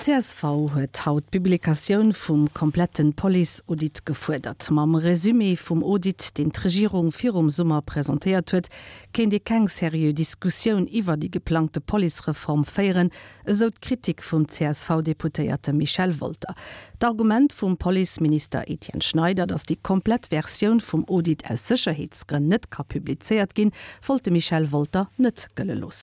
D'CSV huet haut d'Publikatioun vum komplette Police-Audit gefuerdert. Mam Resumé vum Audit, deen d'Regierung virum Summer presentéiert huet, kéint ee keng seriö Diskussioun iwwer déi geplangte Policereform féieren, esou d'Kritik vum CSV-Deputéierte Michel Wolter. D'Argument vum Policeminister Etienne Schneider, datt déi komplett Versioun vum Audit aus Sécherheetsgrënn net ka publizéiert ginn, wollt de Michel Wolter net gëlle loossen.